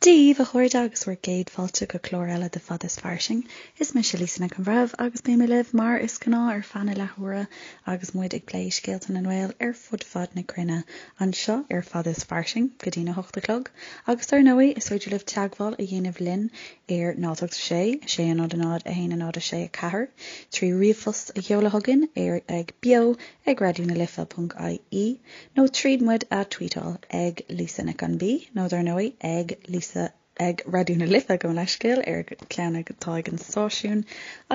Dia daoibh, a chairde, agus bhur gcéad fáilte go clár eile de Fada is Fairsing. Is mise Lisa Nic an Bhreithimh agus beidh mé libh mar is gnáth ar feadh na leathuaire agus muid ag plé scéalta na nGael ar fud fad na cruinne anseo ar Fada is Fairsing go dtína hocht a chlog. Agus dar ndóigh, is féidir libh teagmháil a dhéanamh linn ar 0 8 6 6 0 0 1 0 6 4 trí ríomhphost a sheoladh chugainn ar ag beo ag raidió na life ponc ie nó tríd muid a tweetáil ag Lisa Nic an B nó dar ndóigh ag Lisa ag Raidió na Life gabh mo leithscéal ar an gceann atá ag an stáisiún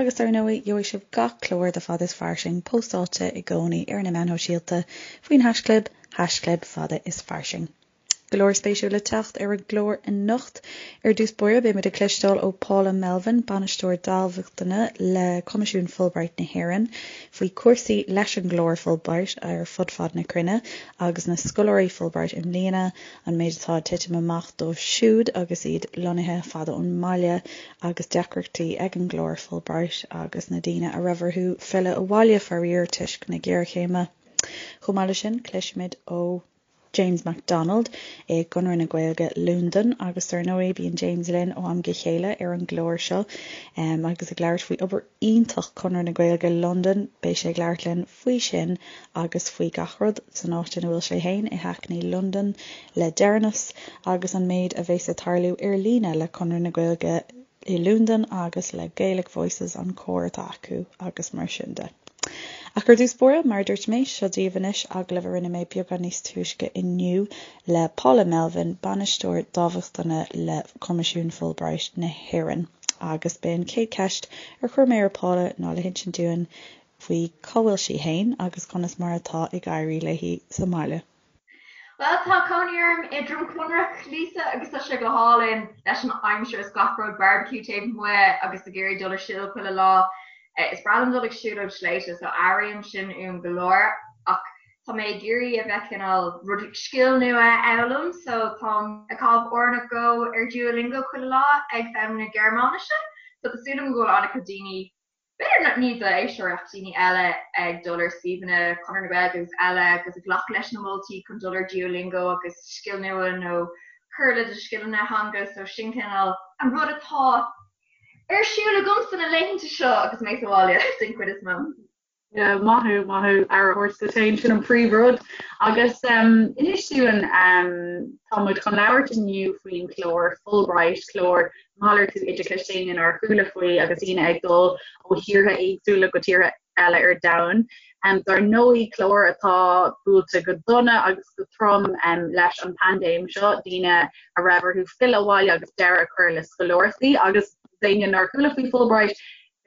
agus dar ndóigh gheobhaidh sibh gach clár de Fada is Fairsing póstáilte i gcónaí ar na meáin shóisialta faoin haischlib haischlib fada is fairsing. Go leor spéisiúil le teacht ar an gclár anocht. Ar dtús báire, beidh muid ag cloisteáil ó Paula Melvin, Bainisteoir Dámhachtana le Coimisiún Fulbright na hÉireann, faoi chúrsaí leis an gclár Fulbright ar fud fad na cruinne agus na scoláirí Fulbright i mbliana, an méid atá ag titim amach dóibh siúd agus iad lonnaithe fada ón mbaile agus deacrachtaí ag an gclár Fulbright agus na daoine a raibh orthu filleadh abhaile faraor toisc na géarchéime. Chomh maith leis sin, cloisfimid ó. James McDonald i gConradh na Gaeilge Londain agus dar ndóigh bíonn James linn ó am go chéile ar an gclár seo agus ag labhairt faoi obair iontach Conradh na Gaeilge Londain. Beidh sé ag labhairt linn faoi sin agus faoi gach rud san áit ina bhfuil sé féin i Hackney Londain le deireanas agus an méid a bheas ag tarlú ar líne le Conradh na Gaeilge i Londain agus le Gaelic Voices, an cór atá acu agus mar sin de. Ach ar dtús báire, mar a dúirt mé, seo daoibh anois agallamh a rinne mé beagán níos túisce inniu le Paula Melvin, Bainisteoir Dámhachtana le Coimisiún Fulbright na hÉireann. Agus b'é an chéad cheist ar chuir mé ar Paula ná le hinsint dúinn faoi cá bhfuil sí fhéin agus conas mar atá ag éirí léi sa mbaile. Bhuel, tá cónaí orm i Droim Conrach, Lisa, agus tá sé go hálainn leis an aimsir is gach rud, barbecue taobh amuigh agus ag iarraidh dul ar siúl chuile lá. Is breá liom dul ag siúlóid sléibhte, so airím sin uaim go leor, ach tá mé ag iarraidh a bheith cineál rud, scil nua a fhoghlaim, so táim ag caitheamh uair nó dhó ar Duolingo chuile lá ag foghlaim na Gearmáinise, so tá súil agam go bhfuil an-chuid daoine B'fhéidir ní d'éisteoirí ach daoine eile ag dul ar suíomhanna Chonradh na Gaeilge agus eile agus ag glacadh leis na moltaí chun dul ar Duolingo agus scil nua nó cur le do scileanna theanga so sin cineál an rud atá ar siúl agamsa na laethanta seo agus mé sa bhaile den chuid is mó. Yeah, maith thú, maith thú, aire a thabhairt duit féin, sin an príomhrud. Agus inis dúinn, tá muid chun labhairt inniu faoin chlár Fulbright, clár malartú oideachais d'éinne nár chuala faoi agus daoine ag dul ó thíortha éagsúla go tíortha eile ar domhan. Dar ndóigh, clár atá buailte go dona agus go trom leis an bpaindéim seo, daoine a raibh orthu filleadh abhaile agus deireadh a chur le scoláireachtaí agus d'éinne nár chuala faoi Fulbright,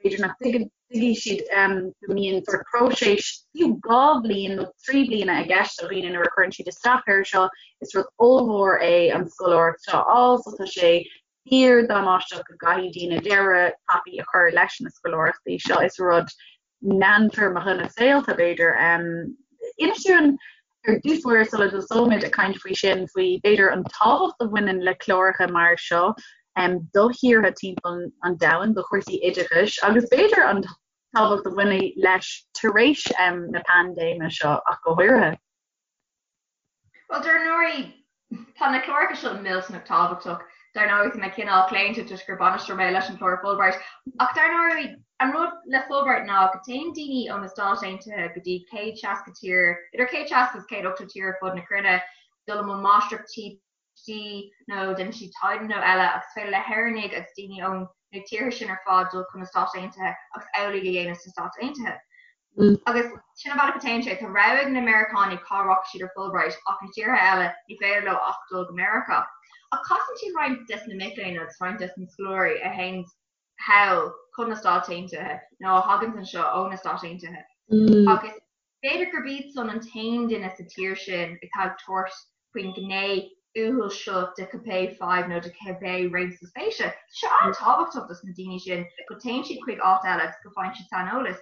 b'fhéidir nach dtuigfidh siad go mbíonn sórt próiseas fiú 2 bhliain nó 3 bliana i gceist do dhaoine nuair a chuireann siad isteach air seo. Is rud ollmhór é an scoláireacht seo a fháil so tá sé fíor damáisteach go gcaithfidh daoine deireadh tapaidh a chur leis na scoláireachtaí seo. Is rud meántéarmach ina saolta b'fhéidir. Inis dúinn ar dtús báire sula dtosóimid ag caint faoi sin, faoi b'fhéidir an tábhacht a bhaineann le cláracha mar seo do thíortha timpeall an domhain, do chúrsaí oideachais agus b'fhéidir an tábhacht a bhainfidh leis tar éis na paindéime seo ach go háirithe. Bhuel, dar ndóigh, tá na cláracha seo millteanach tábhachtach. Dar ndóigh, tá mé cineál claonta toisc gur bainisteoir mé leis an chlár Fulbright. Ach dar ndóigh, an rud le Fulbright ná go dtéann daoine ó na Stáit Aontaithe go dtí 160 tír, idir 160 agus 180 tír ar fud na cruinne, dul i mbun máistreachtaí nó déanann siad taighde nó eile agus is féidir le hÉireannaigh agus daoine ó na tíortha sin ar fad dul chun na Stáit Aontaithe agus amhlaidh a dhéanamh sna Stáit Aontaithe. Agus sin an bealach a téann sé. Tá rogha ag na Meiriceánaigh cá rachaidh siad ar Fulbright ach na tíortha eile ní féidir leo ach dul go Meiriceá. Ach casann siad roinnt des na mic léinn agus roinnt des na scoláirí a théann thall chun na Stáit Aontaithe nó a thaganns anseo ó na Stáit Aontaithe. Agus B'fhéidir gurb iad san an t-aon duine sa tír sin atá ag tabhairt faoin ghné uathúil seo de cibé fadhb nó de cibé réimse spéise. Tá sé an-tábhachtach dos na daoine sin go dtéann siad chuig áit eile agus go bhfaigheann siad saineolas.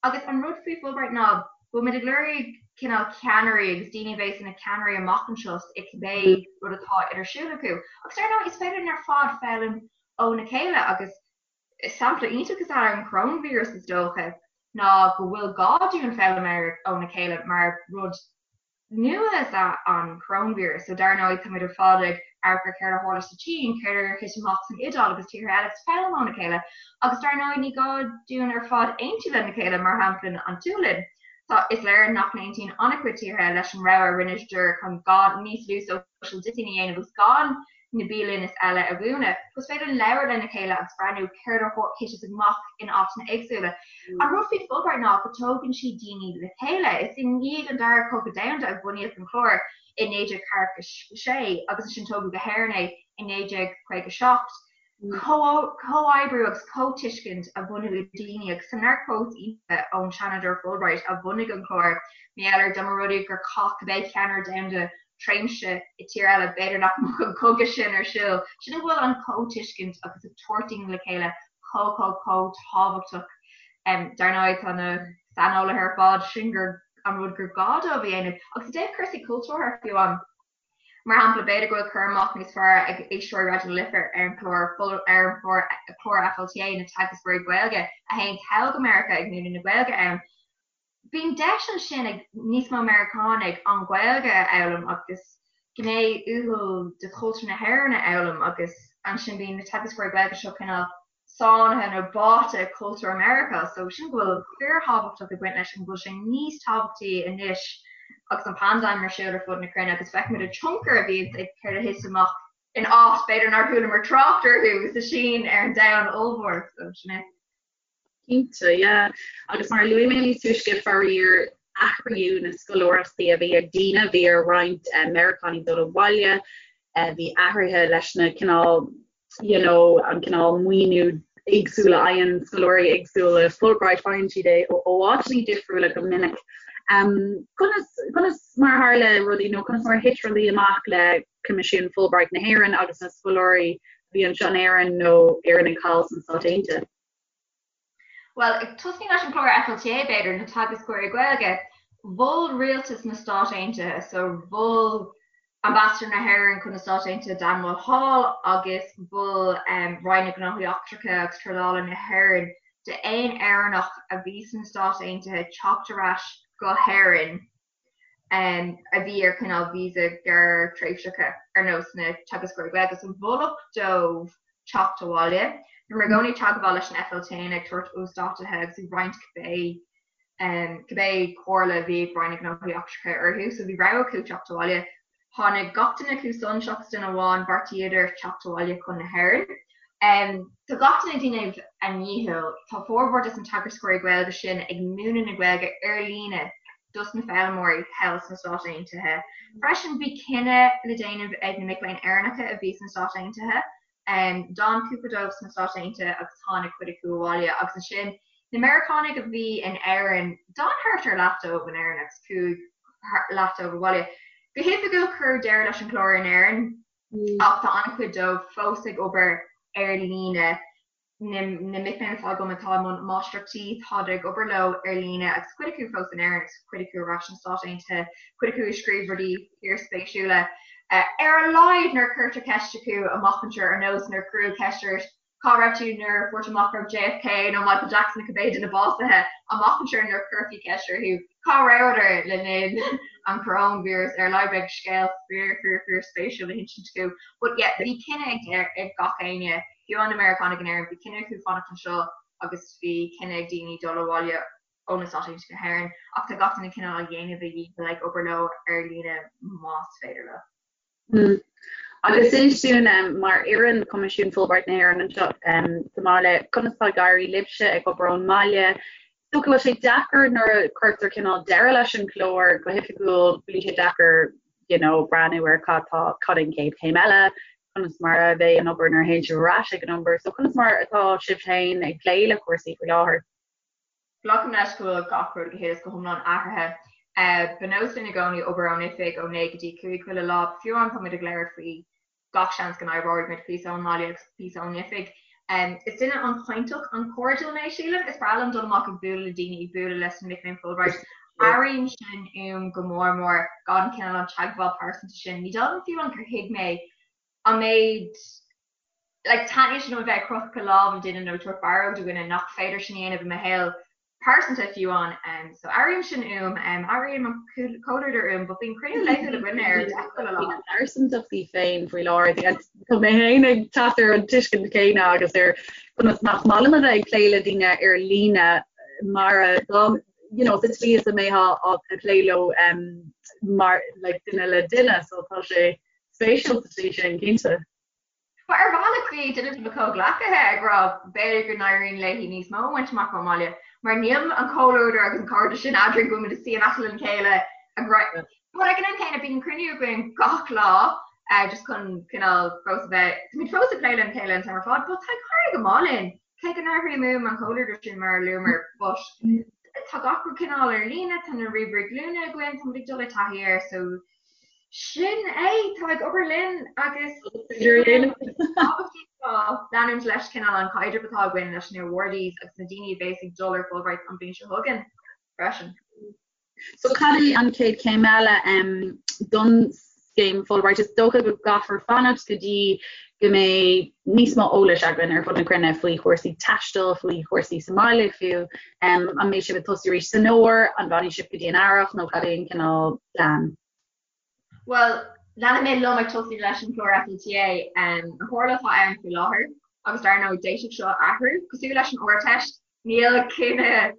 Agus an rud faoi Fulbright ná go bhfuil muid ag lorg cineál ceannairí agus daoine a bheas ina ceannairí amach anseo i cibé rud atá ar siúl acu. Agus ar ndóigh is féidir linn ar fad foghlaim óna chéile agus Sampla iontach is ea an coróinvíreas is dócha, ná go bhfuil gá dúinn foghlaim óna chéile mar rud nua is ea an coróinvíreas. So dar ndóigh táimid ar fad ag Amharc ar céard a tharla sa tSín, céard a thit amach san Iodáil agus tíortha eile agus foghlaim óna chéile. Agus dar ndóigh ní gá dúinn ar fad aontú lena chéile, mar shampla an tSualainn. Tá, is léir nach n-aontaíonn an-chuid tíortha leis an rogha a rinne siad chun gan níos lú social distancing a dhéanamh agus gan na bialanna is eile a dhúnadh. Is féidir linn labhairt lena chéile agus breathnú céard a thiteas amach in áiteanna éagsúla. An rud faoi Fulbright ná go dtógann sí daoine le chéile. Is i ndiaidh an Dara Cogadh Domhanda a bunaíodh an clár i 1946 agus ansin tógadh go hÉirinn é i 1957. Comhoibriú agus comhtuiscint a bhunú idir daoine agus tá neart quotes iontacha ón Seanadóir Fulbright a bhunaigh an clár, mar gheall ar dá mba rud é gur chaith cibé ceannaire domhanda tréimhse i tír eile b'fhéidir nach mbeadh an cogadh sin ar siúl. Sin go bhfuil an comhtuiscint agus ag tabhairt daoine le chéile chomh chomh chomh tábhachtach. Dar ndóigh tá na saineolaithe ar fad sin gur an rud gur gá dóibh a dhéanamh agus i dtaobh cúrsaí cultúrtha fiú amháin. Mar shampla, b'fhéidir go bhfuil cur amach níos fearr ag éisteoirí Raidió na Life ar an chlár ar an chlár FLTA, na teagascóirí Gaeilge a théann thall go Meiriceá ag múineadh na Gaeilge ann. Bíonn deis ansin ag níos mó Meiriceánaigh an Ghaeilge a fhoghlaim agus gné uathúil de chultúr na hÉireann a fhoghlaim agus ansin bíonn na teagascóirí Gaeilge seo cineál sáinnithe nó báite i cultúr Meiriceá so sin go bhfuil fíorthábhachtach ag baint leis an go bhfuil sé níos tábhachtaí anois agus an paindéim ar siúl ar fud na cruinne agus feicimid an tionchar a bhíonns ag céard a thit amach in áit b'fhéidir nár chualamar trácht orthu sa Sín ar an domhan ollmhór so sin é. Cinnte, yeah. Agus mar a luaigh mé níos túisce, faraor, athraíodh na scoláireachtaí a bhí ag daoine, bhí ar roinnt Meiriceánaigh dul abhaile, bhí athruithe leis na cineál you know, an cineál maoiniú éagsúil a fhaigheann scoláirí éagsúla Fulbright, faigheann siad é ó áiteanna difriúla go minic. Um, conas, conas mar a tharla rudaí nó conas mar a thit rudaí amach le Coimisiún Fulbright na hÉireann agus na scoláirí a bhí anseo in Éirinn nó Éireannaigh thall sna Stáit Aontaithe? Bhuel, ag tosnú leis an chlár FLTA, b'fhéidir, na teagascóirí Gaeilge, mhol rialtas na Stát Aontaithe, so mhol Ambasadóir na hÉireann chun na Stát Aontaithe Dan Mulhall agus mhol Roinn na Gnóthaí Eachtracha agus Trádála na hÉireann d'aon Éireannach a bhí sna Stáit Aontaithe teacht ar ais go hÉirinn. a bhí ar cineál víosa gearrthréimhseacha ar nós na teagascóirí Gaeilge so moladh dóibh teacht abhaile. Bhíomar i gcónaí ag teagmháil leis an FLTA ag tabhairt uasdátuithe agus ag roinnt cibé cibé comhairle a bhí ag Roinn na Gnóthaí Eachtracha orthu so bhí rogha acu teacht abhaile. Tháinig gach duine acu san seachas duine amháin, bheartaíodar teacht abhaile chun na hÉireann. Tá gach duine ag déanamh a ndícheall. Tá formhór des na teagascóirí Gaeilge sin ag múineadh na Gaeilge ar líne dos na foghlaimeoirí thall sna Stáit Aontaithe. Freisin bhí cinneadh le déanamh ag na mic léinn Éireannacha a bhí sna Stáit Aontaithe. D'fhan cúpla dóibh sna Stáit Aontaithe agus tháinig cuid acu abhaile agus ansin na Meiriceánaigh a bhí in Éirinn, d'fhan thart ar leath dóibh in Éirinn agus chuaigh leath dóibh abhaile. Go hoifigiúil cuireadh deireadh leis an chlár in Éirinn ach tá an-chuid dóibh fós ag obair ar líne. Na mic léinn atá agam atá i mbun máistreachtaí, táid ag obair leo ar líne agus cuid acu fós in Éirinn agus cuid acu ar ais sna Stáit Aontaithe, cuid acu ag scríobh rudaí fíorspéisiúla. Ar a laghad nuair a cuirtear ceist acu amach anseo ar nós nuair a cuireadh ceist ort cá raibh tú nuair a fuair tú amach go raibh JFK nó Michael Jackson nó cibé duine básaithe, amach anseo nuair a chuirfí ceist orthu cá rabhadar le linn an choróinvíreas ar a laghad beidh scéal fíor fíor fíor spéisiúil le hinsint acu. But yeah, bhí cinneadh ag gach éinne. Fiú na Meiriceánaigh in Éirinn, bhí cinneadh acu fanacht anseo agus bhí cinneadh ag daoine dul abhaile ó na Stáit Aontaithe go hÉirinn ach tá gach duine cineál á dhéanamh a dhícheall ag obair leo ar líne más féidir leo. Mm. Agus inis dúinn mar fhoireann Choimisiún Fulbright na hÉireann anseo sa mbaile, conas tá ag éirí libhse ag obair ón mbaile? Is dócha go bhfuil sé deacair nuair a cuirtear cineál deireadh leis an chlár go hoifigiúil, bíonn sé deacair you know, breathnú ar cad tá cad é an chéad chéim eile, conas mar a bheidh an obair nuair a théann sibh ar ais ag an obair. So conas mar atá sibh féin ag plé le cúrsaí faoi láthair? Glacaim leis go bhfuil gach rud go huile is go hiomlán athraithe. Ba nós linn i gcónaí obair ón oifig ó 9 go dtí 5 chuile lá. Fiú amháin tá muid ag labhairt faoi gach seans go n-oibreoidh muid píosa ón mbaile agus píosa ón oifig. Is duine an-chainteach, an-chairdiúil mé, sílim. Is breá liom dul amach ag bualadh le daoine, ag bualadh leis na mic léinn Fulbright. Airím sin uaim go mór mór, gan cineál an teagmháil pearsanta sin. Ní dóigh liom fiú amháin gur thuig mé an méid like taitníonn sé liom a bheith ag croitheadh lámh le duine nó ag tabhairt barróg do dhuine nach féidir sin a dhéanamh i mo shaol. Pearsanta fiú amháin. So airím sin uaim, airím an comhluadar uaim, but bíonn cruinniú laethúil againne ar deich chuile lá. Na pearsantachtaí féin faoi láthair. Tá mé féin ag teacht ar an tuiscint chéanna agus ar conas nach maith liom a bheith ag plé le daoine ar líne mar a dá you know, sa tslí is a mbeifeá ag plé leo mar like duine le duine, so tá sé spéisiúil sa tslí sin, cinnte. Bhuel, ar bhealach bhí duine de mo chomhghleacaithe ag rá b'fhéidir go n-éiríonn léi níos mó a bhaint amach ón mbaile mar níl an comhluadar agus an cairdeas sin eadrainn go bhfuil muid ag suí in aice lena chéile ag rá But ag an am céanna bíonn cruinniú againn gach lá just chun cineál fós a bheith, táimid fós ag plé lena chéile an t-am ar fad but tá ag éirí go maith linn cé go n-airím uaim an comhluadar sin mar a luamar but tá gach rud cineál ar líne, tá na ríomhairí glúine againn, táimid ag dul i dtaithí air so Sin é, tá ag obair linn agus leanúint leis cineál an caidreamh atá againn leis na awardees agus na daoine a bheas ag dul ar Fulbright an bhliain seo chugainn freisin. So cad é an chéad chéim eile don scéim Fulbright? Is dócha go gcaithfear fanacht go dtí go mbeidh níos mó eolais againn ar fud na cruinne faoi chúrsaí taistil, faoi chúrsaí sa mbaile fiú. An mbeidh sibh ag tosú arís san fhómhar? An bhfanfaidh sibh go dtí an earrach nó cad é an cineál plean? Bhuel, leanfaidh mé liom ag tosú leis an chlár FLTA. An chomhairle atá ann faoi láthair, agus dar ndóigh d'fhéadfadh seo athrú, cosúil leis an Ardteist, níl cinneadh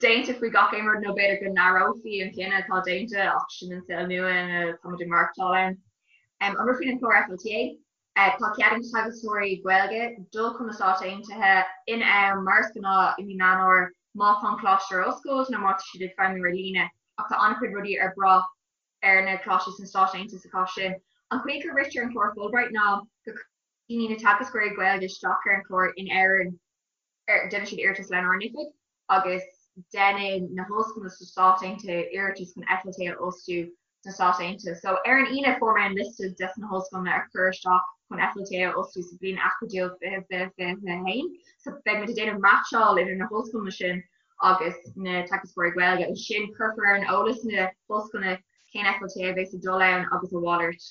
déanta faoi gach aon rud nó b'fhéidir go n-athrófaí an cinneadh atá déanta ach sin an saol nua ina táimid ag maireachtáil ann. An rud faoin chlár FLTA, tá cead ag teagascóirí Gaeilge dul chun na Stáit Aontaithe in am mar is gnáth i mí Meán Fhómhair má tá an coláiste ar oscailt nó má tá siad ag feidhmiú ar líne ach tá an-chuid rudaí ar brath ar na coláistí sna Stáit Aontaithe sa chás sin. An chaoi go ritear an clár Fulbright ná go cuireann na teagascóirí Gaeilge isteach ar an chlár in Éirinn déanann siad iarratas lenár n-oifig agus déanann na hollscoileanna sna Stáit Aontaithe iarratas chun FLTA a fhostú sna Stáit Aontaithe. So ar an Aoine fuair mé an liosta des na hollscoileanna a chuir isteach chun FLTA a fhostú sa bhliain acadúil 2020, 2021. So beidh muid ag déanamh meaitseáil idir na hollscoileanna sin agus na teagascóirí Gaeilge. Ansin cuirfear ar an eolas na hollscoileanna cén FLTA a bheas ag dul ann agus a mhalairt.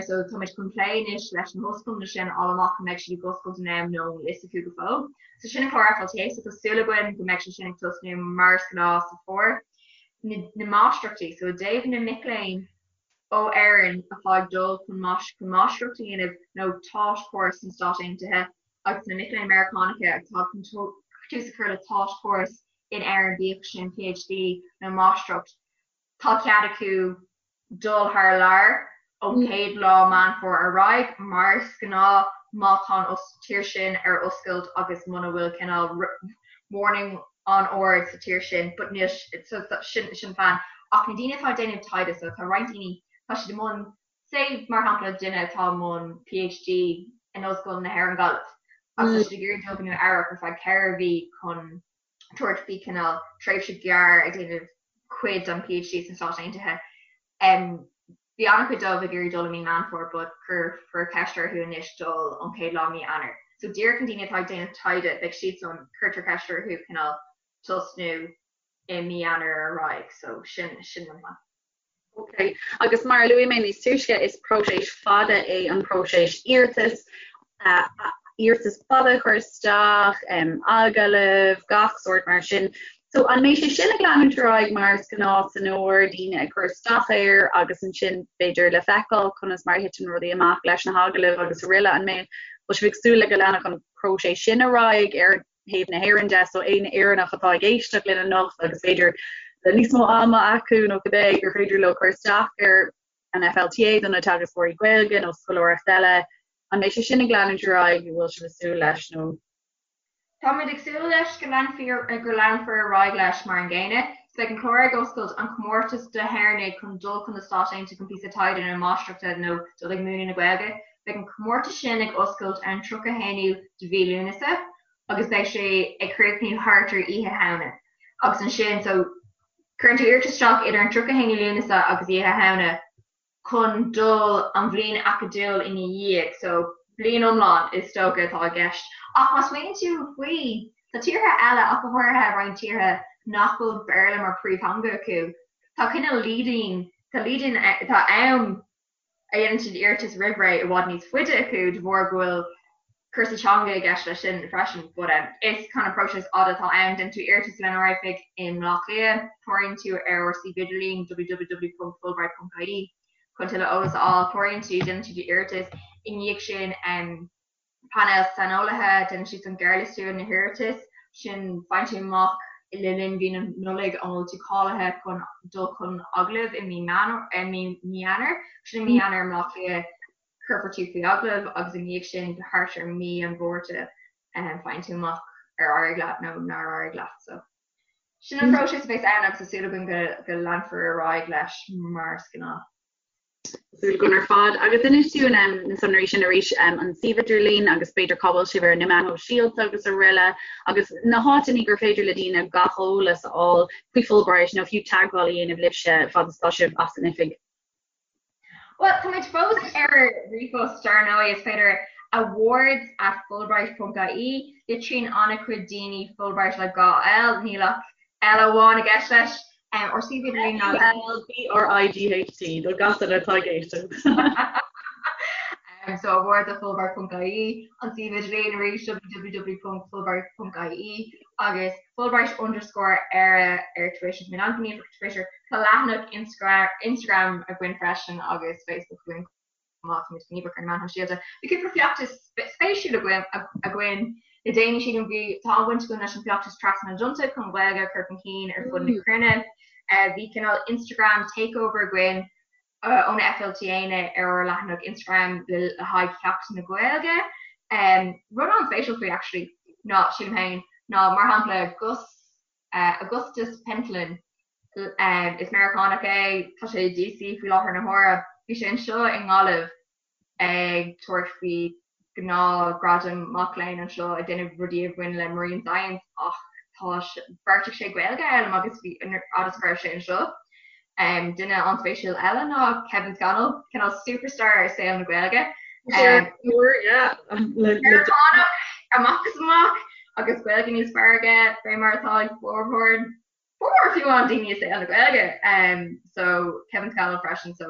So táimid chun plé anois leis na hollscoileanna sin a fháil amach an mbeidh siad ag oscailt in am nó an bhfuil fhios acu go fóill. So sin an clár FLTA so tá súil againn go mbeidh sé sin ag tosnú mar is gnáth sa bhfómhar. Na, na máistreachtaí, so i dtaobh na mic léinn ó Éirinn atá ag dul chun chun máistreacht a dhéanamh nó taught course sna Stáit Aontaithe agus na mic léinn Meiriceánacha atá chun tús a chur le taught course in Éirinn bíodh sin PhD nó máistreacht, tá cead acu dul thar lear ón chéad lá Meán Fómhair ar aghaidh, mar is gnáth má tá an tír sin ar oscailt agus muna bhfuil cineál warning an-ard sa tír sin, but níl, so sin sin plean. Ach na daoine atá ag déanamh taighde, so tá roinnt daoine, tá siad i mbun, say mar shampla duine atá i mbun PhD in Ollscoil na hÉireann Gaillimh agus tá siad ag iarraidh dul go Nua Eabhrac ar feadh 4 mhí chun tabhairt faoi cineál tréimhse gearr ag déanamh cuid den PhD sna Stáit Aontaithe. Bhí an-chuid dóibh ag iarraidh dul i mí Meán Fómhair but cuirfear ceist orthu anois dul ón chéad lá mí Eanáir. So díreach na daoine atá ag déanamh taighde, beidh siadsan, cuirtear ceist orthu cineál tosnú i mí Eanáir ar aghaidh. So sin, sin an plean. Ok, agus mar a luaigh mé níos túisce, is próiseas fada é an próiseas iarratais, iarratas fada a chur isteach, agallaimh, gach sórt mar sin. So an mbeidh sé sin ag leanúint ar aghaidh mar is gnáth san fhómhar, daoine ag cur isteach air agus ansin b'fhéidir le feiceáil conas mar a thiteann rudaí amach leis na hagallaimh agus araile, an mbeidh, bhfuil sibh ag súil le go leanfadh an próiseas sin ar aghaidh ar thaobh na hÉireann de, so aon Éireannach atá ag éisteacht linn anocht agus b'fhéidir le níos mó ama acu nó cibé gur féidir leo cur isteach ar an FLTA do na teagascóirí Gaeilge nó scoláireacht eile, an mbeidh sé sin ag leanúint ar aghaidh, an bhfuil sibh ag súil leis nó? Táimid ag súil leis go leanfar go leanfar ar aghaidh leis mar an gcéanna. So beidh an clár ag oscailt, an comórtas do hÉireannaigh chun dul chun na Stáit Aontaithe chun píosa taighde nó máistreachta nó dul ag múineadh na Gaeilge. Beidh an comórtas sin ag oscailt ar an 31ú de mhí Lúnasa agus beidh sé ag críochnú thart ar Oíche Shamhna. Agus ansin, so, cuireann tú iarratas isteach idir an 31ú Lúnasa agus Oíche Shamhna chun dul an bhliain acadúil ina dhiaidh, so, bliain iomlán is dócha atá i gceist. Ach má smaoiníonn tú faoi, tá tíortha eile, ach go háirithe roinnt tíortha nach bhfuil Béarla mar phríomhtheanga acu, tá cineál lead-in, tá lead-in, tá am a dhéanann siad iarratas roimh ré i bhfad níos faide acu de bharr go bhfuil. Cúrsaí teanga i gceist leis sin freisin but is kind of próiseas fada atá ann. Déanann tú iarratas lenár oifig i mBleá Cliath, cláraíonn tú ar ár suíomh idirlín www.fulbright.ie chun tuilleadh eolas a fháil, cláraíonn tú, déanann tú d'iarratas, i ndiaidh sin painéal saineolaithe, déanann siad an gearrliostú ar na hiarratais sin, faigheann tú amach le linn mhí na Nollag an bhfuil tú cáilithe chun dul chun agallaimh i mí Eanáir, sin i mí Eanáir i mBleá Cliath. Cuirfear tú faoi agallamh agus i ndiaidh sin thart ar mí an Mhárta faigheann tú amach ar éirigh leat nó nár éirigh leat. So sin an próiseas a bheas ann agus tá súil againn go go leanfar ar aghaidh leis mar is gnáth. Súil againn ar fad. Agus inis dúinn na sonraí sin arís, an suíomh idirlín agus b'fhéidir cá bhfuil sibh ar na meáin shóisialta agus araile agus na háiteanna gur féidir le daoine gach eolas a fháil faoi Fulbright nó fiú teagmháil a dhéanamh libhse fad is atá sibh as an oifig. Bhuel, táimid fós ar ríomhphost, dar ndóigh, is féidir awards at fulbright ponc ie. Litríonn an-chuid daoine Fulbright le 2 L, níl ach L amháin i gceist leis. Ár suíomh idirlín ná. F-U-L-B-R-I-G-H-T, do gach duine atá ag éisteacht. So awards at fulbright ponc ie, an suíomh idirlín arís www ponc fulbright ponc ie. agus Fulbright underscore Éire ar Twitter. Táimid an-ghníomhach ar Twitter. Tá leathanach Instagram againn freisin agus Facebook againn chomh maith. Táimid gníomhach ar na meáin shóisialta. Bhí cúpla feachtas spéisiúil againn le déanaí sílim. Bhí tá an-bhaint againn leis an feachtas Trasna na dTonnta chun Gaeilge a chur chun cinn ar fud na cruinne. Bhí cineál Instagram takeover againn ó na FLTAnna ar ár leathanach Instagram le haghaidh Sheachtain na Gaeilge. Rud an-spéisiúil faoi actually ná, sílim féin, ná mar shampla Gus, Augustus Pentland, is Meiriceánach é, tá sé i DC faoi láthair na huaire, bhí sé anseo i nGaillimh ag tabhairt faoi ghnáthghradam mac léinn anseo ag déanamh rudaí a bhain le marine science ach tá bheartaigh sé Gaeilge a fhoghlaim agus bhí fhad is go raibh sé anseo. Duine an-spéisiúil eile ná Kevin Scannell, cineál superstar i saol na Gaeilge. Meiriceánach amach is amach agus Gaeilge níos fearr aige fé mar atá ag formhór Formhór fiú amháin daoine i saol na Gaeilge so Kevin Scannell freisin so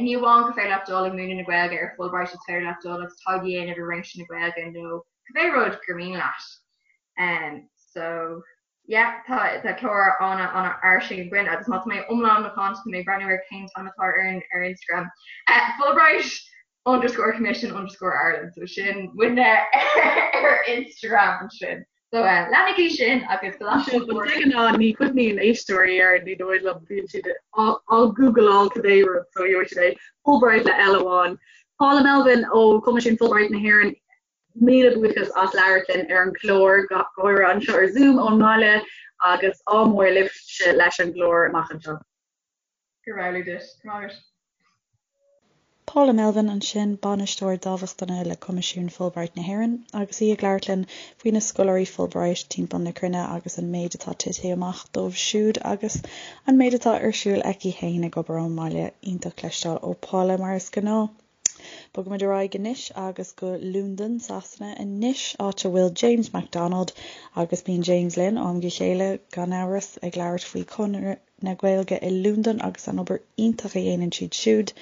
ní amháin gur féidir leat dul ag múineadh na Gaeilge ar Fulbright is féidir leat dul agus taighde a dhéanamh i réimse na Gaeilge nó cibé rud gur mian leat. So yeah tá tá clár ana ana fhairsing againn agus má tá mé iomlán macánta tá mé ag breathnú ar cén t-ainm atá ar ar Instagram. Fulbright underscore commission underscore Ireland so sin muidne ar Instagram ansin. So leanaigí sin agus go lean De ghnáth ní chuimhníonn éisteoirí air ní dóigh liom bíonn siad á gúgláil cibé rud so gheobhaidh siad é Fulbright le L amháin. Paula Melvin ó Choimisiún Fulbright na hÉireann, míle buíochas as labhairt linn ar an gclár go háirithe anseo ar Zoom ón mbaile agus ádh mór libhse leis an gclár amach anseo. Go raibh maith agat. Go raibh maith agat. Paula Melvin ansin, Bainisteoir Dámhachtana le Coimisiún Fulbright na hÉireann, agus í ag labhairt linn faoi na scoláirí Fulbright timpeall na cruinne agus an méid atá tite amach dóibh siúd agus an méid atá ar siúl aici féin ag obair ón mbaile. Iontach cloisteáil ó Paula mar is gnáth. Bogaimid ar aghaidh anois agus go Londain, Sasana anois, áit a bhfuil James McDonald agus bíonn James linn ó am go chéile, gan amhras, ag labhairt faoi Chonradh na Gaeilge i Londain agus an obair iontach a dhéanann siad siúd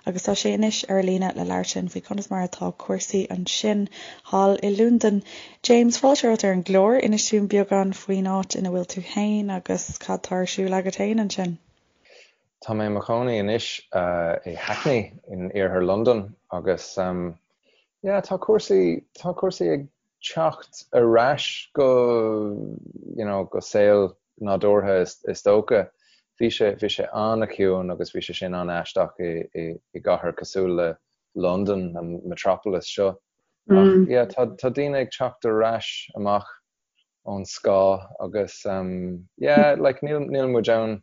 agus tá sé anois ar líne le labhairt linn faoi conas mar atá cúrsaí ansin thall i Londain. James, fáilte romhat ar an gclár. Inis dúinn beagán faoin áit ina bhfuil tú féin agus cad tá ar siúl agat féin ansin. Tá mé i mo chónaí anois i Hackney in iarthar Londain agus yeah tá cúrsaí, tá cúrsaí ag teacht ar ais go you know go saol nádúrtha is dócha. Bhí sé, bhí sé an-chiúin agus bhí sé sin an-aisteach i, i, i gcathair cosúil le Londain, an metropolis seo. Ach yeah, tá, tá daoine ag teacht ar ais amach ón scáth agus um, yeah, like níl, níl muid ann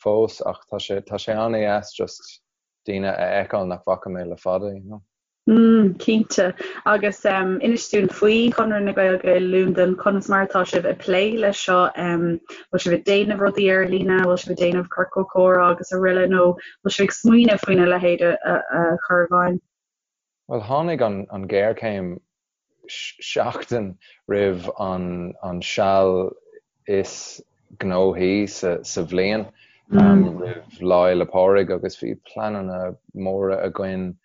fós ach tá sé, tá sé an-dheas just daoine a fheiceáil nach bhfaca mé le fada, you know. Mm, cinnte. Agus inis dúinn faoi Chonradh na Gaeilge i Londain, conas mar atá sibh ag plé leis seo? Bhfuil sibh ag déanamh rudaí ar líne, bhfuil sibh ag déanamh ciorcal comhrá agus araile nó bhfuil sibh ag smaoineamh faoina leithéid a chur i bhfeidhm? Bhuel, tháinig an ghéarchéim seachtain roimh an seal is gnóthaí sa bhliain, roimh Lá Fhéile Pádraig agus bhí pleananna móra againn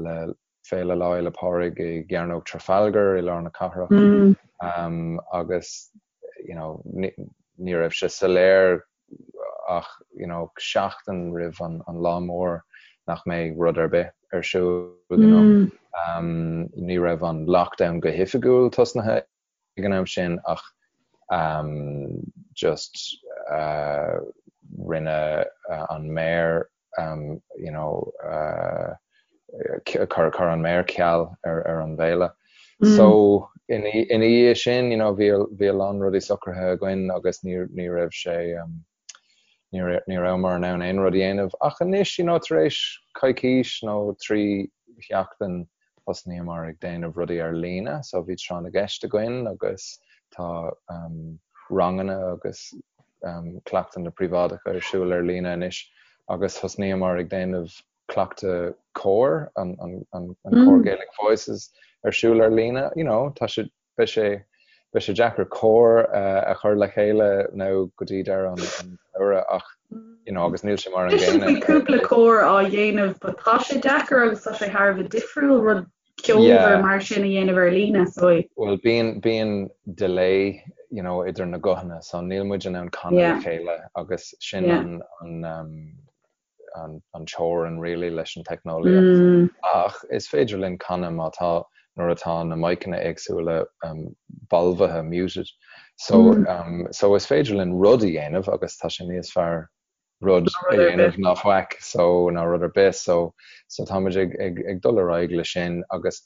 le. Féile Lá Fhéile Pádraig i gCearnóg Trafalgar i lár na cathrach agus you know ní raibh sé soiléir ach you know seachtain roimh an an lá mór nach mbeidh rud ar bith ar siúl you know. Ní raibh an lockdown go hoifigiúil tosnaithe ag an am sin ach just rinne an méara you know chuir an méara ceal ar ar an bhféile. So ina ina dhiaidh sin you know bhí bhí a lán rudaí socraithe againn agus ní ní raibh sé ní ní rabhamar in ann aon rud a dhéanamh ach anois you know tar éis coicís nó 3 sheachtain thosnaíomar ag déanamh rudaí ar líne so bhí tráth na gceist againn agus tá um, ranganna agus um, cleachtanna príobháideacha ar siúl ar líne anois agus thosnaíomar ag déanamh cleachtadh cóir an, an, an, an mm. cór Gaelic Voices ar siúl ar líne you know, tá sé Beidh sé beidh sé deacair cór a chur le chéile nó go dtí deireadh an tsamhraidh ach you know agus níl sé mar an gcéanna. Bhí cúpla cór á dhéanamh but tá sé deacair agus tá sé thar a bheith difriúil rud ceolmhar mar sin a dhéanamh ar líne so. Bhuel bíonn bíonn delay you know idir na guthanna so níl muid in ann canadh le chéile agus sin an an um, an teorainn really leis an teicneolaíocht. Ach is féidir linn canadh má tá, nuair atá na miceanna éagsúla balbhaithe, muted. So so is féidir linn rud a dhéanamh agus tá sé níos fearr rud a dhéanamh ná faic so ná rud ar bith so so táimid ag ag ag dul ar aghaidh le sin agus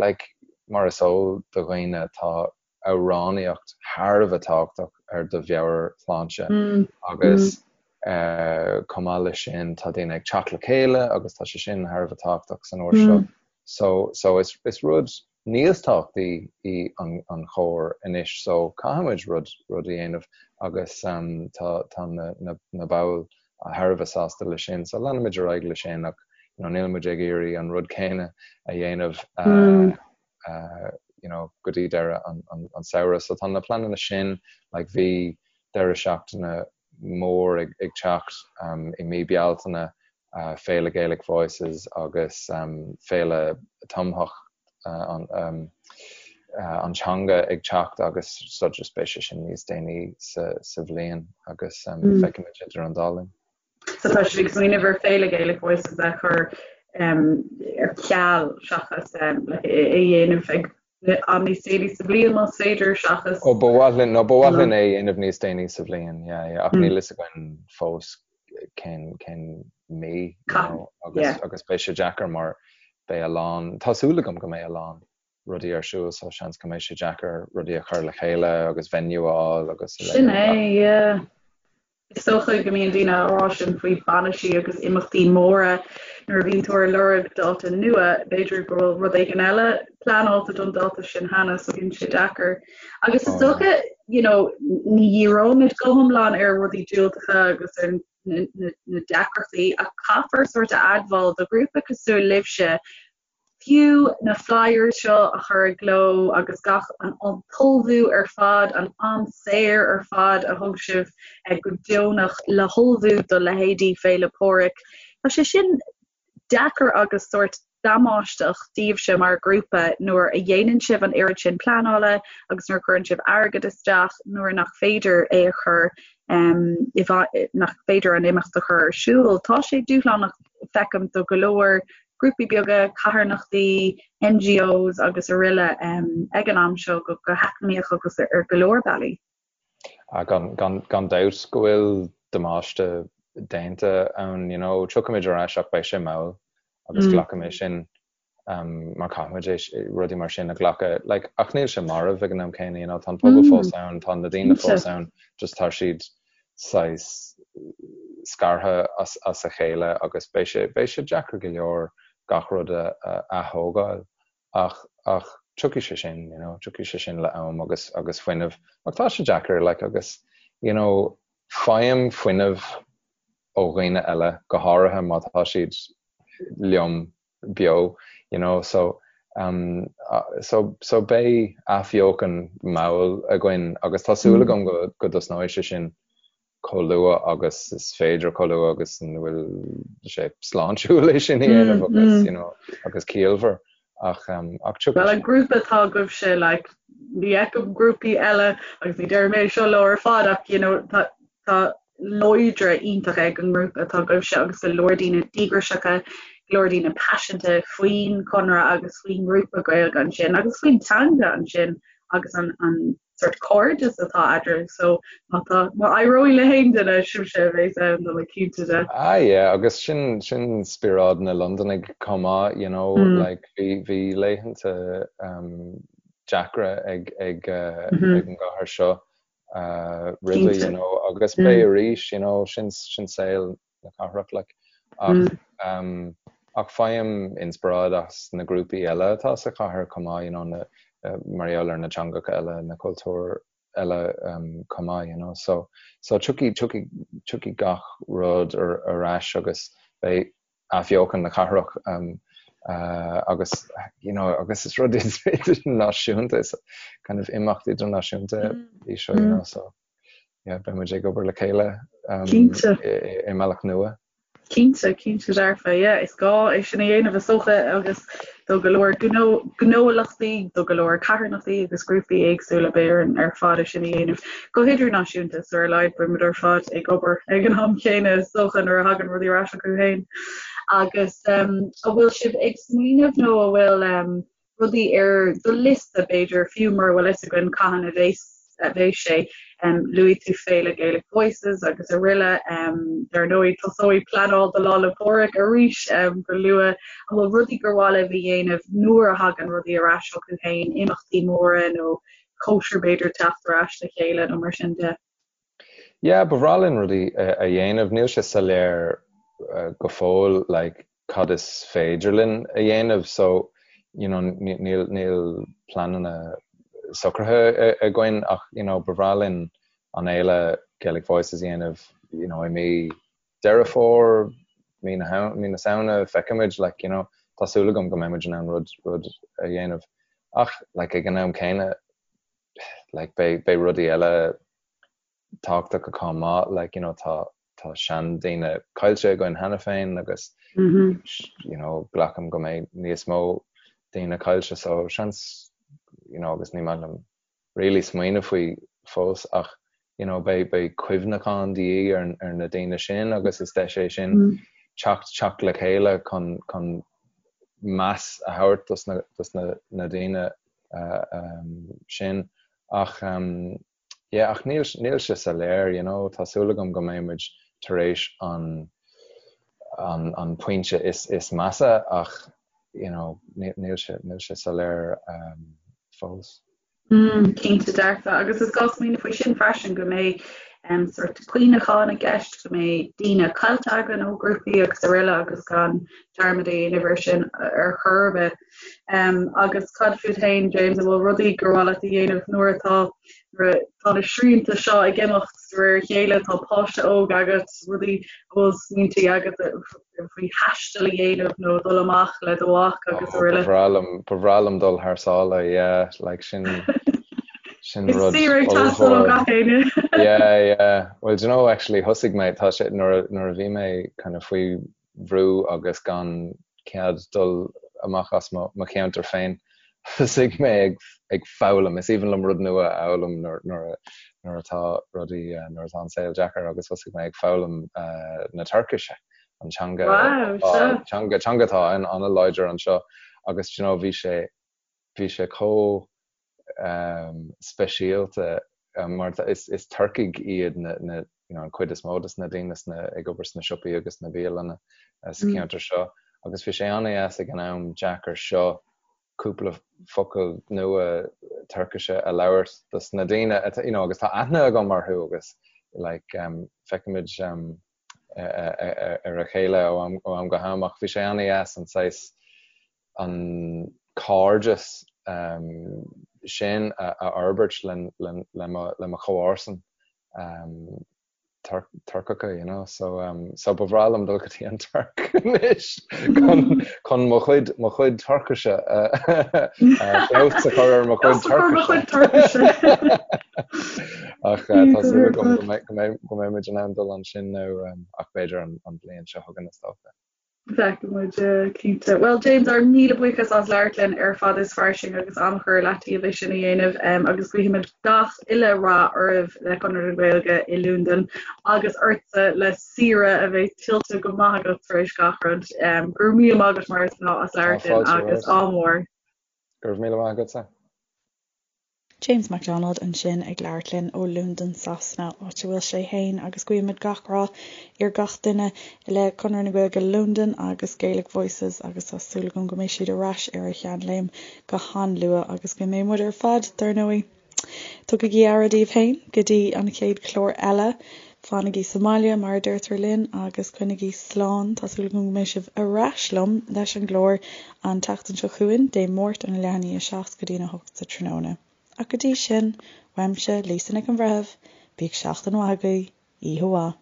like mar is eol do dhaoine tá amhránaíocht thar a bheith tábhachtach ar do mheabhairshláinte agus chomh maith leis sin tá daoine ag teacht le chéile agus tá sé sin thar a bheith tábhachtach san uair seo. So so is is rud níos tábhachtaí í an an chór anois so caithfimid rud rud a dhéanamh agus tá tá na na na baill thar a bheith sásta leis sin so leanfaimid ar aghaidh leis sin ach you know nílimid ag iarraidh an rud céanna a dhéanamh you know, go dtí deireadh an, an, an samhradh. So tá na pleananna sin, like bhí deireadh seachtaine mór ag, ag teacht um, i mí Bealtaine, uh, Féile Gaelic Voices agus um, Féile Tumthach uh, an, um, uh, an teanga ag teacht agus so just beidh sé sin níos déanaí sa, sa bhliain agus um, mm. feicfimid idir an dá linn. So tá sibh ag smaoineamh ar Féile Gaelic Voices a chur ar ceal seachas é a dhéanamh ag am níos déanaí sa bhliain más féidir seachas. Ó ba mhaith linn, nó ba mhaith linn é a dhéanamh níos déanaí sa bhliain, yeah, yeah, ach níl fhios againn fós cén, cén mí, you know, agus, agus beidh sé deacair mar beidh a lán, tá súil agam go mbeidh a lán rudaí ar siúl so seans go mbeidh sé deacair rudaí a chur le chéile agus venue a fháil agus a Sin é, yeah. Is dócha go mbíonn daoine á rá sin faoi bainisí agus imeachtaí móra nuair a bhíonn tú ar lorg dáta nua, b'fhéidir go bhfuil rud éigin eile pleanáilte don dáta sin cheana so bíonn sé deacair. Agus is dócha, you know, ní dhíreoimid go hiomlán ar rudaí diúltacha agus ar na, na, na deacrachtaí ach caithfear sórt a admháil do ghrúpa cosúil libhse Fiú na flyers seo a chur i gcló agus gach an t-ullmhú ar fad, an am saor ar fad a thug sibh go deonach le hullmhú do leithéidí Féile Pádraig, tá sé sin deacair agus sórt damáisteach daoibhse mar ghrúpa nuair a dhéanann sibh an oiread sin pleanála agus nuair a chuireann sibh airgead isteach nuair nach féidir é a chur nach féidir an imeacht a chur ar siúl. Tá sé dúshlánach feicim do go leor grúpaí beaga, carthanachtaí, NGOs agus aroile ag an am seo go heacnamaíoch agus ar go leor bealaí. Gan dabht go bhfuil damáiste déanta ann, you know, tiocfaimid ar ais ach beidh sé mall agus glacfaidh mé sin mar caithfimid é rudaí mar sin a ghlacadh. Like, ach níl sé marbh ag an am céanna, you know, tá an pobal fós ann, tá na daoine fós ann, just tá siad saghas scartha as a chéile agus beidh sé, beidh sé deacair go leor gach rud a ath-thógáil ach, ach tiocfaidh sé sin, you know, tiocfaidh sé sin le am agus, agus fuinneamh. Ach tá sé deacair, like, agus, you know, faighim fuinneamh ó dhaoine eile, go háirithe má tá siad liom beo, you know, so, um, so, so beidh athbheochan mall againn agus tá súil agam go, go dtosnóidh sé sin chomh luath agus is féidir, chomh luath agus an bhfuil sé sláintiúil é sin a dhéanamh agus, you know, agus ciallmhar. Ach ach tiocfaidh Well an grúpa atá agaibhse like ní fheicim grúpaí eile agus ní deirim é seo leo ar fad ach you know tá tá láidre iontach ag an ngrúpa atá agaibhse agus go leor daoine díograiseacha, go leor daoine paiseanta faoin Chonradh agus faoin ngrúpa Gaeilge ansin agus faoin teanga ansin agus an an sort cairdeas atá eadraibh so má tá má éireoidh le haon duine sibhse a bheas ann tá mé cinnte de. Ah yeah agus sin sin spiorad na Londanaigh chomh maith you know mm. like bhí bhí laethanta um, deacra ag ag uh, mm -hmm. ag an gcathair seo uh, roimhe you know agus mm. beidh arís you know sin sin saol na cathrach like ach mm. um, ach faighim inspioráid as na grúpaí eile atá sa chathair chomh maith you know na uh, mar gheall ar na teangacha eile na cultúir eile um, chomh maith you know so so tiocfaidh tiocfaidh tiocfaidh gach rud ar, ar ais agus beidh athbheochan na cathrach um, uh, agus you know agus is rud idirnáisiúnta is kind of imeacht idirnáisiúnta mm. í seo you mm. know so yeah, beidh muid ag obair le chéile um, Cinnte. i mbealach nua. Cinnte, cinnte dearfa, yeah, is gá é sin a dhéanamh is dócha agus do go leor gnó, gnólachtaí, do go leor carthanachtaí agus grúpaí éagsúla beidh orainn ar fad é sin a dhéanamh go hidirnáisiúnta so ar a laghad beidh muid ar fad ag obair ag an am chéanna is dócha nuair a thagann rudaí ar ais chucu féin. Agus um, an bhfuil sibh ag smaoineamh nó an bhfuil um, rudaí ar do liosta, b'fhéidir, fiú mura bhfuil fhios againn cathain a bheas a bheas sé. Luaigh tú Féile Gaelic Voices agus araile. Dar ndóigh, tosóidh pleanáil do Lá 'le Pádraig arís go luath. An bhfuil rudaí gur mhaith libh a dhéanamh nuair a thagann rudaí ar ais chucu féin, imeachtaí móra nó cóisir b'fhéidir teacht ar ais le chéile nó mar sin de? Yeah, ba bhreá linn rudaí a dhéanamh. Níl sé soiléir go fóill like cad is féidir linn a dhéanamh so you know níl níl pleananna socraithe againn ach you know ba bhreá linn an fhéile Gaelic Voices a dhéanamh you know i mí Deireadh Fómhair, mí na mí na Samhna, feicfimid like you know tá súil agam go mbeidh muid in ann rud rud a dhéanamh ach like ag an am céanna like beidh beidh rudaí eile tábhachtach chomh maith like you know tá tá seandaoine caillte againn cheana féin agus mm -hmm. you know glacaim go mbeidh níos mó daoine caillte so seans you know agus ní maith liom really smaoineamh faoi fós ach you know beidh beidh cuimhneachán de dhíth ar ar na daoine sin agus is deis é sin mm. teacht teacht le chéile chun chun meas a thabhairt dos na dos na na daoine sin ach yeah ach níl níl sé soiléir you know tá súil agam go mbeidh muid tar éis an an an pointe is is measa ach you know níl sé níl sé soiléir fós. Mm, cinnte dearfa agus is gá smaoineamh faoi sin freisin go mbeidh um, sort cuimhneachán i gceist, go mbeidh daoine caillte againn ó grúpaí agus araile agus gan dearmad a dhéanamh ar sin ar chor ar bith. Um, agus cad fút féin, James, an bhfuil rudaí gur mhaith leat a dhéanamh nuair atá nuair atá na srianta seo ag imeacht de réir a chéile, tá páiste óg agat, rudaí an bhfuil smaointe agat faoi thaisteal a dhéanamh nó dul amach le do mhac agus oh, araile. Ba bhreá liom ba bhreá liom dul thar sáile, yeah, like sin sin rud Is ag teastáil ó gach éinne. Yeah, yeah. Well, do you know, actually, thosaigh mé, tá sé, nuair a bhí mé kind of faoi bhrú agus gan cead dul amach as mo cheantar féin, thosaigh mé ag foghlaim. Is aoibhinn liom rud nua a fhoghlaim nuair atá rudaí, nuair atá an saol deacair agus thosaigh mé ag foghlaim na Tuircise, an teanga, teanga, teanga atá an-láidir anseo agus do you know bhí sé, bhí sé chomh speisialta mar is Turcaigh iad na you know an chuid is mó de na daoine sna ag obair sna siopaí agus sna bialanna sa cheantar seo agus bhí sé an-deas ag an am deacair seo cúpla focal nua Tuircise a labhairt dos na daoine you know agus tá aithne agam orthu agus like um, feicimid um, ar a chéile ó am, ó am go ham ach bhí sé an-deas an saghas an cairdeas sin a fhorbairt le mo chomharsan Turcacha, you know. So, so ba bhreá liom dul go dtí an Tuirc anois chun chun mo chuid mo chuid Tuircise feabhas a chur ar mo chuid Tuircise. Ach tá súil agam go mbeidh go mbeidh muid in ann dul ansin nó ach b'fhéidir an bhliain seo chugainn is dócha. Feicfidh muid, cinnte. Bhuel, James, ár míle buíochas as labhairt linn ar Fada is Fairsing agus am a chur i leataobh é sin a dhéanamh agus guímid gach uile rath oraibh le Conradh na Gaeilge i Londain agus ortsa le saoire a bheidh tuillte go maith agat tar éis gach rud. Go raibh míle maith agat mar is gnáth as labhairt linn agus ádh mór. Go raibh míle maith agatsa. James McDonald ansin ag labhairt linn ó Londain Sasana, áit a bhfuil sé fhéin agus guímid gach rath ar gach duine le Conradh na Gaeilge Londain agus Gaelic Voices agus tá súil agam go mbeidh siad ar ais ar a sheanléim go han-luath agus go mbeidh muid ar fad, dar ndóigh. Tugaigí aire daoibh féin go dtí an chéad chlár eile. Fanaigí sa mbaile, mar a deirtear linn, agus coinnigí slán. Tá súil agam go mbeidh sibh ar ais liom leis an gclár an tseachtain seo chugainn, Dé Máirt óna leath i ndiaidh a 7 go dtí'n 8 sa tráthnóna. Ach go dtí sin, uaimse, Lisa Nic an Bhreithimh, bíodh seachtain mhaith agaibh, oíche mhaith.